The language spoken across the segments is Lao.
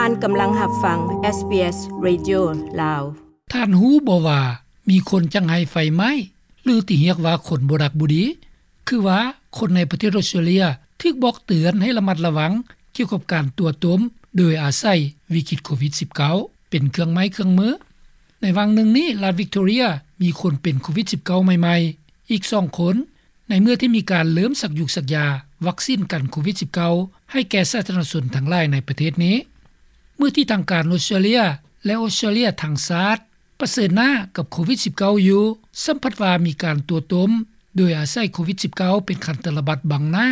ທ່ານກຳລັງຮັບຟັງ ເອສບີເອສ Radio ລາວ. ທ່ານຮູ້ບໍ່ວ່າມີຄົນຈັກໄຫ້ໄຟໄໝ້ ຫຼືທີ່ຮຽກວ່າຄົນບໍ່ດັກບໍ່ດີ? ຄືວ່າຄົນໃນປະເທດອອສເຕຣເລັຍຖືກບອກເຕືອນໃຫ້ລະມັດລະວັງກ່ຽວກັບການຕົວະຕົມໂດຍອາໄສວິກິດໂຄວິດສິບເກົ້າເປັນເຄື່ອງໄມ້ເຄື່ອງມື. ໃນຫວ່າງໜຶ່ງນີ້ ລັດວິກຕໍເຣຍມີຄົນເປັນໂຄວິດສິບເກົ້າໃໝ່ໆອີກສອງຄົນ ໃນເມື່ອທີ່ມີການເລີ່ມສັກຢູກສັກຢາວັກຊີນກັນໂຄວິດສິບເກົ້າໃຫ້ແກ່ສາທາລະນະຊົນທັງຫຼາຍໃນປະເທດນີ້. ເມື່ອທີ່ທາງການອອສເຕຣເລັຍ ແລະ ອອສເຕຣເລັຍທັງຊາດປະເຊີນໜ້າກັບໂຄວິດສິບເກົ້າຢູ່ ສ່ຳພັດວ່າມີການຕົວະຕົມໂດຍອາໄສໂຄວິດສິບເກົ້າເປັນຂັ້ນຕະລະບັດບັງໜ້າ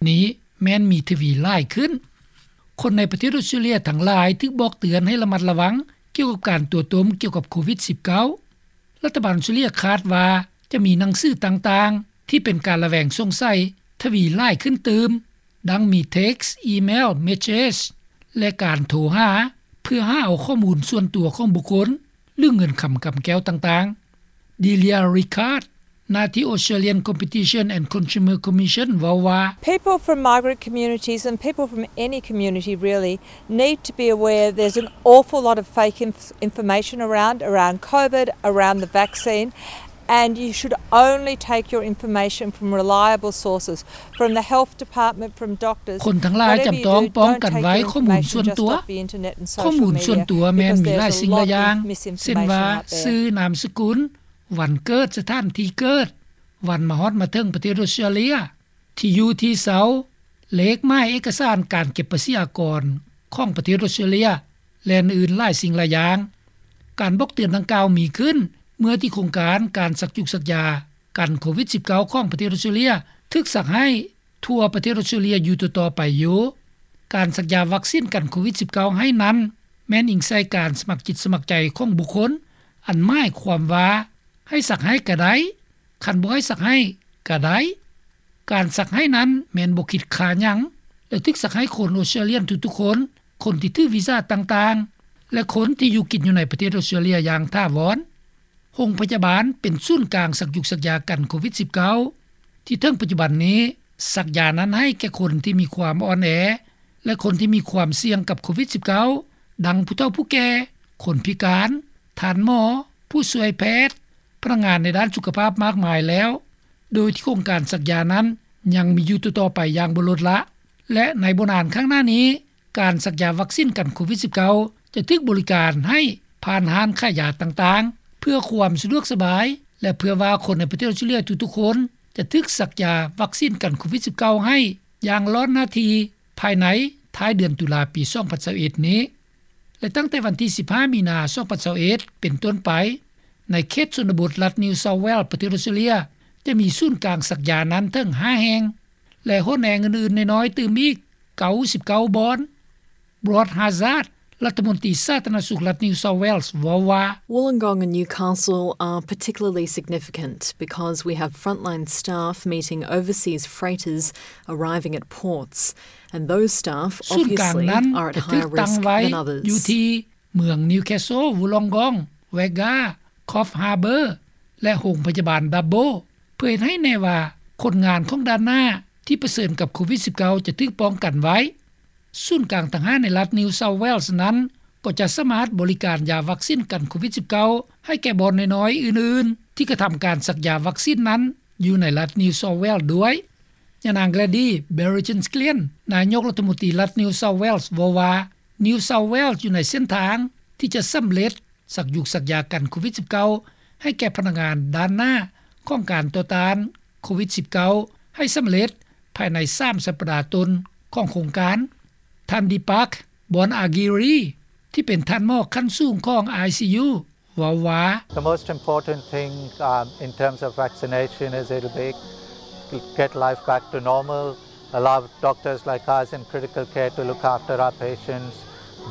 ນີ້ແມ່ນມີທະວີຫຼາຍຂຶ້ນ. ຄົນໃນປະເທດອອສເຕຣເລັຍທັງຫຼາຍຖືກບອກເຕືອນໃຫ້ລະມັດລະວັງກ່ຽວກັບການຕົວະຕົມກ່ຽວກັບໂຄວິດສິບເກົ້າ. ລັດຖະບານອອສເຕຣເລັຍຄາດວ່າຈະມີໜັງສືຕ່າງໆທີ່ເປັນການລະແວງສົງໄສທະວີຫຼາຍຂຶ້ນຕື່ມ, ດັ່ງມີເທັກ, ອີເມວ, ເມສເຊຈ ແລະ ການໂທຫາເພື່ອຫາເອົາຂໍ້ມູນສ່ວນຕົວຂອງບຸກຄົນ ຫຼືເງິນຄຳກຳແກ້ວຕ່າງໆ. ດີເລຍ ຣິຄາດ ໜ້າທີ່ Australian Competition and Consumer Commission ເວົ້າວ່າ People from migrant communities and people from any community really need to be aware there's an awful lot of fake inf- information around, around COVID, around the vaccine, and you should only take your information from reliable sources, from the health department, from doctors. ຄົນທັງຫຼາຍຈຳຕ້ອງປ້ອງກັນໄວ້ຂໍ້ມູນສ່ວນຕົວ. ຂໍ້ມູນສ່ວນຕົວແມ່ນມີຫຼາຍສິ່ງຫຼາຍຢ່າງ ເຊັ່ນວ່າ ຊື່, ນາມສະກຸນ, ວັນເກີດ, ສະຖານທີ່ເກີດ, ວັນມາຮອດມາເຖິງປະເທດອອສເຕຣເລັຍ, ທີ່ຢູ່ທີ່ເຊົາ, ເລກໝາຍເອກະສານການເກັບພາສີອາກອນຂອງປະເທດອອສເຕຣເລັຍ ແລະ ອື່ນໆຫຼາຍສິ່ງຫຼາຍຢ່າງ. ການບອກເຕືອນດັ່ງກ່າວມີຂຶ້ນເມື່ອທີ່ໂຄງການການສັກຢູກສັກຢາກັນໂຄວິດສິບເກົ້າຂອງປະເທດອອສເຕຣເລັຍຖືກສັກໃຫ້ທົ່ວປະເທດອອສເຕຣເລັຍຢູ່ຕໍ່ໆໄປຢູ່. ການສັກຢາວັກຊີນກັນໂຄວິດສິບເກົ້າໃຫ້ນັ້ນ ແມ່ນອີງໃສ່ການສະໝັກຈິດສະໝັກໃຈຂອງບຸກຄົນ, ອັນໝາຍຄວາມວ່າໃຫ້ສັກໃຫ້ກະໄດ້, ຄັນບໍ່ໃຫ້ສັກໃຫ້ກະໄດ້. ການສັກໃຫ້ນັ້ນແມ່ນບໍ່ຄິດຄ່າຫຍັງ ແລະ ຖືກສັກໃຫ້ຄົນອອສເຕຣເລັຍທຸກໆຄົນ, ຄົນທີ່ຖືວີຊາຕ່າງໆ ແລະ ຄົນທີ່ຢູ່ກິນຢູ່ໃນປະເທດອອສເຕຣເລັຍຢ່າງຖາວອນ. ໂຮງພະຍາບານເປັນສູນກາງສັກຢູກສັກຢາກັນໂຄວິດສິບເກົ້າ ທີ່ເຖິງປັດຈຸບັນນີ້ ສັກຢານັ້ນໃຫ້ແກ່ຄົນທີ່ມີຄວາມອ່ອນແອ ແລະ ຄົນທີ່ມີຄວາມສ່ຽງກັບໂຄວິດສິບເກົ້າ ດັ່ງຜູ້ເຖົ້າຜູ້ແກ່, ຄົນພິການ, ທ່ານໝໍ, ຜູ້ຊ່ວຍແພດ, ພະນັກງານໃນດ້ານສຸຂະພາບມາກມາຍແລ້ວ, ໂດຍທີ່ໂຄງການສັກຢານັ້ນຍັງມີຢູ່ຕໍ່ໆໄປຢ່າງບໍ່ລົດລະ ແລະ ໃນບໍ່ນານຂ້າງໜ້ານີ້ ການສັກຢາວັກຊີນກັນໂຄວິດສິບເກົ້າ ຈະຖືກບໍລິການໃຫ້ຜ່ານຮ້ານຂາຍຢາຕ່າງໆ ເພື່ອຄວາມສະດວກສະບາຍ ແລະ ເພື່ອວ່າຄົນໃນປະເທດອອສເຕຣເລັຍທຸກໆຄົນ ຈະຖືກສັກຢາວັກຊີນກັນໂຄວິດສິບເກົ້າໃຫ້ຢ່າງລ້ອນໜ້າທີ່ ພາຍໃນທ້າຍເດືອນຕຸລາປີສອງພັນຊາວເອັດນີ້ ແລະ ຕັ້ງແຕ່ວັນທີສິບຫ້າ ມີນາ ສອງພັນຊາວເອັດ ເປັນຕົ້ນໄປ ໃນເຂດຊົນນະບົດລັດ New South Wales ປະເທດອອສເຕຣເລັຍ ຈະມີສູນກາງສັກຢານັ້ນເຖິງຫ້າແຫ່ງ ແລະ ຫົນແຫ່ງອື່ນໆນ້ອຍໆຕື່ມອີກເກົ້າສິບເກົ້າບ່ອນ. Brad Hazzard ລັດຖະມົນຕີສາທາລະນະສຸກລັດ New South Wales ເວົ້າວ່າ Wollongong and Newcastle are particularly significant because we have frontline staff meeting overseas freighters arriving at ports, and those staff obviously are at higher risk than others. ຢູ່ທີ່ເມືອງ Newcastle, Wollongong, Wagga, Coffs Harbour ແລະ ໂຮງພະຍາບານ Dubbo ເພື່ອເຮັດໃຫ້ແນ່ວ່າຄົນງານຂອງດ່ານໜ້າທີ່ປະເຊີນກັບໂຄວິດສິບເກົ້າ ຈະຖືກປ້ອງກັນໄວ້. ສູນກາງຕ່າງຫາກໃນລັດ New South Wales ນັ້ນ ກໍຈະສາມາດບໍລິການຢາວັກຊີນກັນໂຄວິດສິບເກົ້າ ໃຫ້ແກ່ບ່ອນນ້ອຍໆອື່ນໆ ທີ່ກະທຳການສັກຢາວັກຊີນນັ້ນ ຢູ່ໃນລັດ New South Wales ດ້ວຍ. ຍານາງ Gladys Berejiklian ນາຍົກລັດຖະມົນຕີລັດ New South Wales ເວົ້າວ່າ New South Wales ຢູ່ໃນເສັ້ນທາງທີ່ຈະສຳເລັດສັກຢູກສັກຢາກັນໂຄວິດສິບເກົ້າ ໃຫ້ແກ່ພະນັກງານດ່ານໜ້າຂອງການຕໍ່ຕ້ານໂຄວິດສິບເກົ້າ ໃຫ້ສຳເລັດພາຍໃນສາມສັບປະດາຕົ້ນຂອງໂຄງການ. ທ່ານ Deepak Bonagiri ທີ່ເປັນທ່ານໝໍຂັ້ນສູງຂອງ ICU ເວົ້າວ່າ The most important thing, um, in terms of vaccination is it'll be get life back to normal, allow doctors like us in critical care to look after our patients.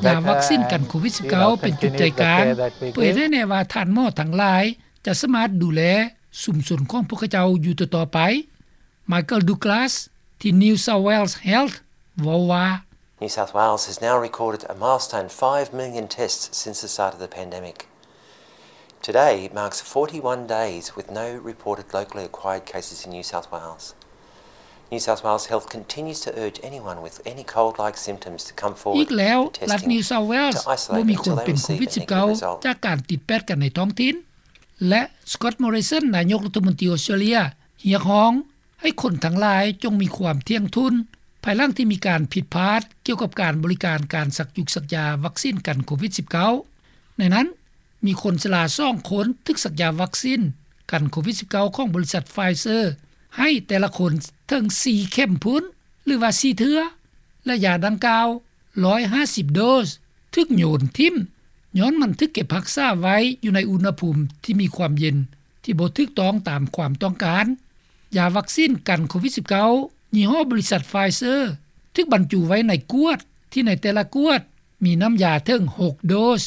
ຢາວັກຊີນກັນໂຄວິດສິບເກົ້າ ເປັນຈຸດໃຈກາງ ເພື່ອເຮັດໃຫ້ແນ່ວ່າທ່ານໝໍທັງຫຼາຍຈະສາມາດດູແລຊຸມຊົນຂອງພວກເຂົາເຈົ້າຢູ່ຕໍ່ໆໄປ. Michael Douglas ທີ່ New South Wales Health ເວົ້າວ່າ New South Wales has now recorded a milestone five million tests since the start of the pandemic. Today marks forty-one days with no reported locally acquired cases in New South Wales. New South Wales Health continues to urge anyone with any cold-like symptoms to come forward for testing, to isolate until they receive a negative result. ອີກແລ້ວ, ລັດ New South Wales ບໍ່ມີຄົນເປັນໂຄວິດສິບເກົ້າ ຈາກການຕິດແປດກັນໃນທ້ອງຖິ່ນ ແລະ Scott Morrison ນາຍົກລັດຖະມົນຕີອົດສະຕຣາເລຍ ຮຽກຮ້ອງໃຫ້ຄົນທັງຫຼາຍຈົ່ງມີຄວາມທ່ຽງທຸ່ນ ພາຍຫຼັງທີ່ມີການຜິດພາດກ່ຽວກັບການບໍລິການການສັກຍຸກສັກຢາວັກຊີນກັນໂຄວິດສິບເກົ້າ. ໃນນັ້ນ, ມີຄົນຊະລາສອງຄົນຖືກສັກຢາວັກຊີນກັນໂຄວິດສິບເກົ້າ ຂອງບໍລິສັດ Pfizer ໃຫ້ແຕ່ລະຄົນເຖິງສີ່ເຂັມພຸ້ນ ຫຼືວ່າສີ່ເທື່ອ ແລະ ຢາດັ່ງກ່າວ ຮ້ອຍຫ້າສິບໂດສ ຖືກໂຍນຖິ້ມ ຍ້ອນມັນຖືກເກັບຮັກສາໄວ້ຢູ່ໃນອຸນຫະພູມທີ່ມີຄວາມເຢັນທີ່ບໍ່ຖືກຕ້ອງຕາມຄວາມຕ້ອງການ. ຢາວັກຊີນກັນໂຄວິດສິບເກົ້າ ຍີ່ຫໍ້ບໍລິສັດ Pfizer ຖືກບັນຈຸໄວ້ໃນກວດ ທີ່ໃນແຕ່ລະກວດມີນ້ຳຢາເຖິງຫົກໂດສ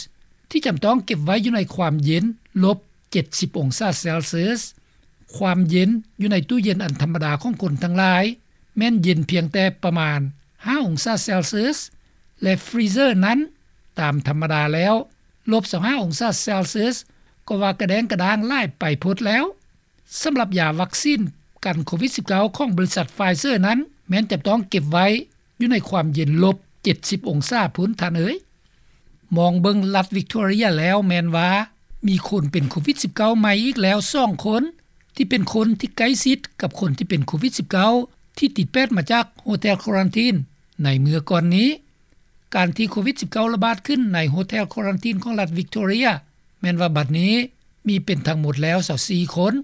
ທີ່ຈຳຕ້ອງເກັບໄວ້ຢູ່ໃນຄວາມເຢັນລົບເຈັດສິບອົງສາເຊລຊຽສ. ຄວາມເຢັນຢູ່ໃນຕູ້ເຢັນອັນທຳມະດາຂອງຄົນທັງຫຼາຍ ແມ່ນເຢັນພຽງແຕ່ປະມານຫ້າອົງສາເຊລຊຽສ ແລະ ຟຣີເຊີນັ້ນ ຕາມທຳມະດາແລ້ວ ລົບຊາວຫ້າອົງສາເຊລຊຽສ ກໍວ່າກະແດງກະດ້າງຫຼາຍໄປໂພດແລ້ວ. ສຳລັບຢາວັກຊີນກັນໂຄວິດສິບເກົ້າ ຂອງບໍລິສັດ Pfizer ນັ້ນ ແມ່ນຈະຕ້ອງເກັບໄວ້ຢູ່ໃນຄວາມເຢັນລົບເຈັດສິບອົງສາພຸ້ນ ທ່ານເອີຍ. ມອງເບິ່ງລັດ Victoria ແລ້ວແມ່ນວ່າມີຄົນເປັນໂຄວິດສິບເກົ້າໃໝ່ອີກແລ້ວສອງຄົນ ທີ່ເປັນຄົນທີ່ໃກ້ຊິດກັບຄົນທີ່ເປັນໂຄວິດສິບເກົ້າ ທີ່ຕິດແປດມາຈາກໂຮເທລຄວຣັນທີນໃນເມື່ອກ່ອນນີ້. ການທີ່ໂຄວິດສິບເກົ້າລະບາດຂຶ້ນໃນໂຮເທລຄວຣັນທີນຂອງລັດ Victoria ແມ່ນວ່າບັດນີ້ມີເປັນທັງໝົດແລ້ວຊາວສີ່ຄົນ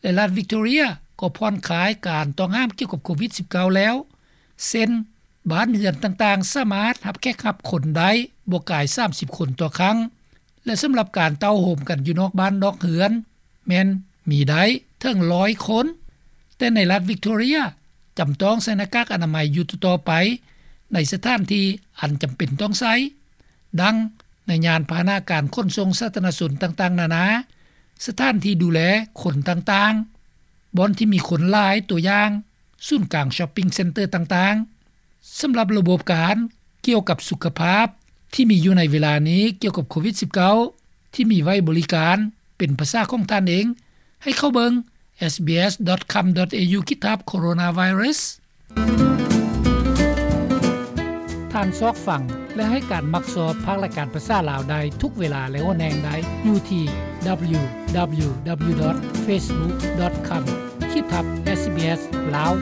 ແລະ ລັດ Victoria ກໍຜ່ອນຄາຍການຕ້ອງຫ້າມກ່ຽວກັບໂຄວິດສິບເກົ້າແລ້ວ ເຊັ່ນ ບ້ານເຮືອນຕ່າງໆສາມາດຮັບແຂກຮັບຄົນໄດ້ບໍ່ກາຍສາມສິບຄົນຕໍ່ຄັ້ງ ແລະ ສຳລັບການເຕົ້າໂຮມກັນຢູ່ນອກບ້ານນອກເຮືອນ ແມ່ນມີໄດ້ເຖິງຮ້ອຍຄົນ. ແຕ່ໃນລັດ Victoria ຈຳຕ້ອງໃສ່ໜ້າກາກອະນາໄມຢູ່ຕໍ່ໆໄປ ໃນສະຖານທີ່ອັນຈຳເປັນຕ້ອງໃຊ້ ດັ່ງໃນຍານພາຫະນະການຂົນສົ່ງສາທາລະນະຊົນຕ່າງໆນານາ, ສະຖານທີ່ດູແລຄົນຕ່າງໆ, ບ່ອນທີ່ມີຄົນຫຼາຍ, ຕົວຢ່າງ ສູນກາງ shopping center ຕ່າງໆ. ສຳລັບລະບົບການກ່ຽວກັບສຸຂະພາບທີ່ມີຢູ່ໃນເວລານີ້ກ່ຽວກັບໂຄວິດສິບເກົ້າ ທີ່ມີໄວ້ບໍລິການເປັນພາສາຂອງທ່ານເອງ, ໃຫ້ເຂົ້າເບິ່ງ SBS.com.au ຂີດທັບ Coronavirus. ທ່ານຊອກຟັງ ແລະ ໃຫ້ການມັກຊອບພາກລາຍການພາສາລາວໄດ້ທຸກເວລາ ແລະ ໂອແນງໄດ້ຢູ່ທີ່ www.facebook.com ຂີດທັບ SBS ລາວ.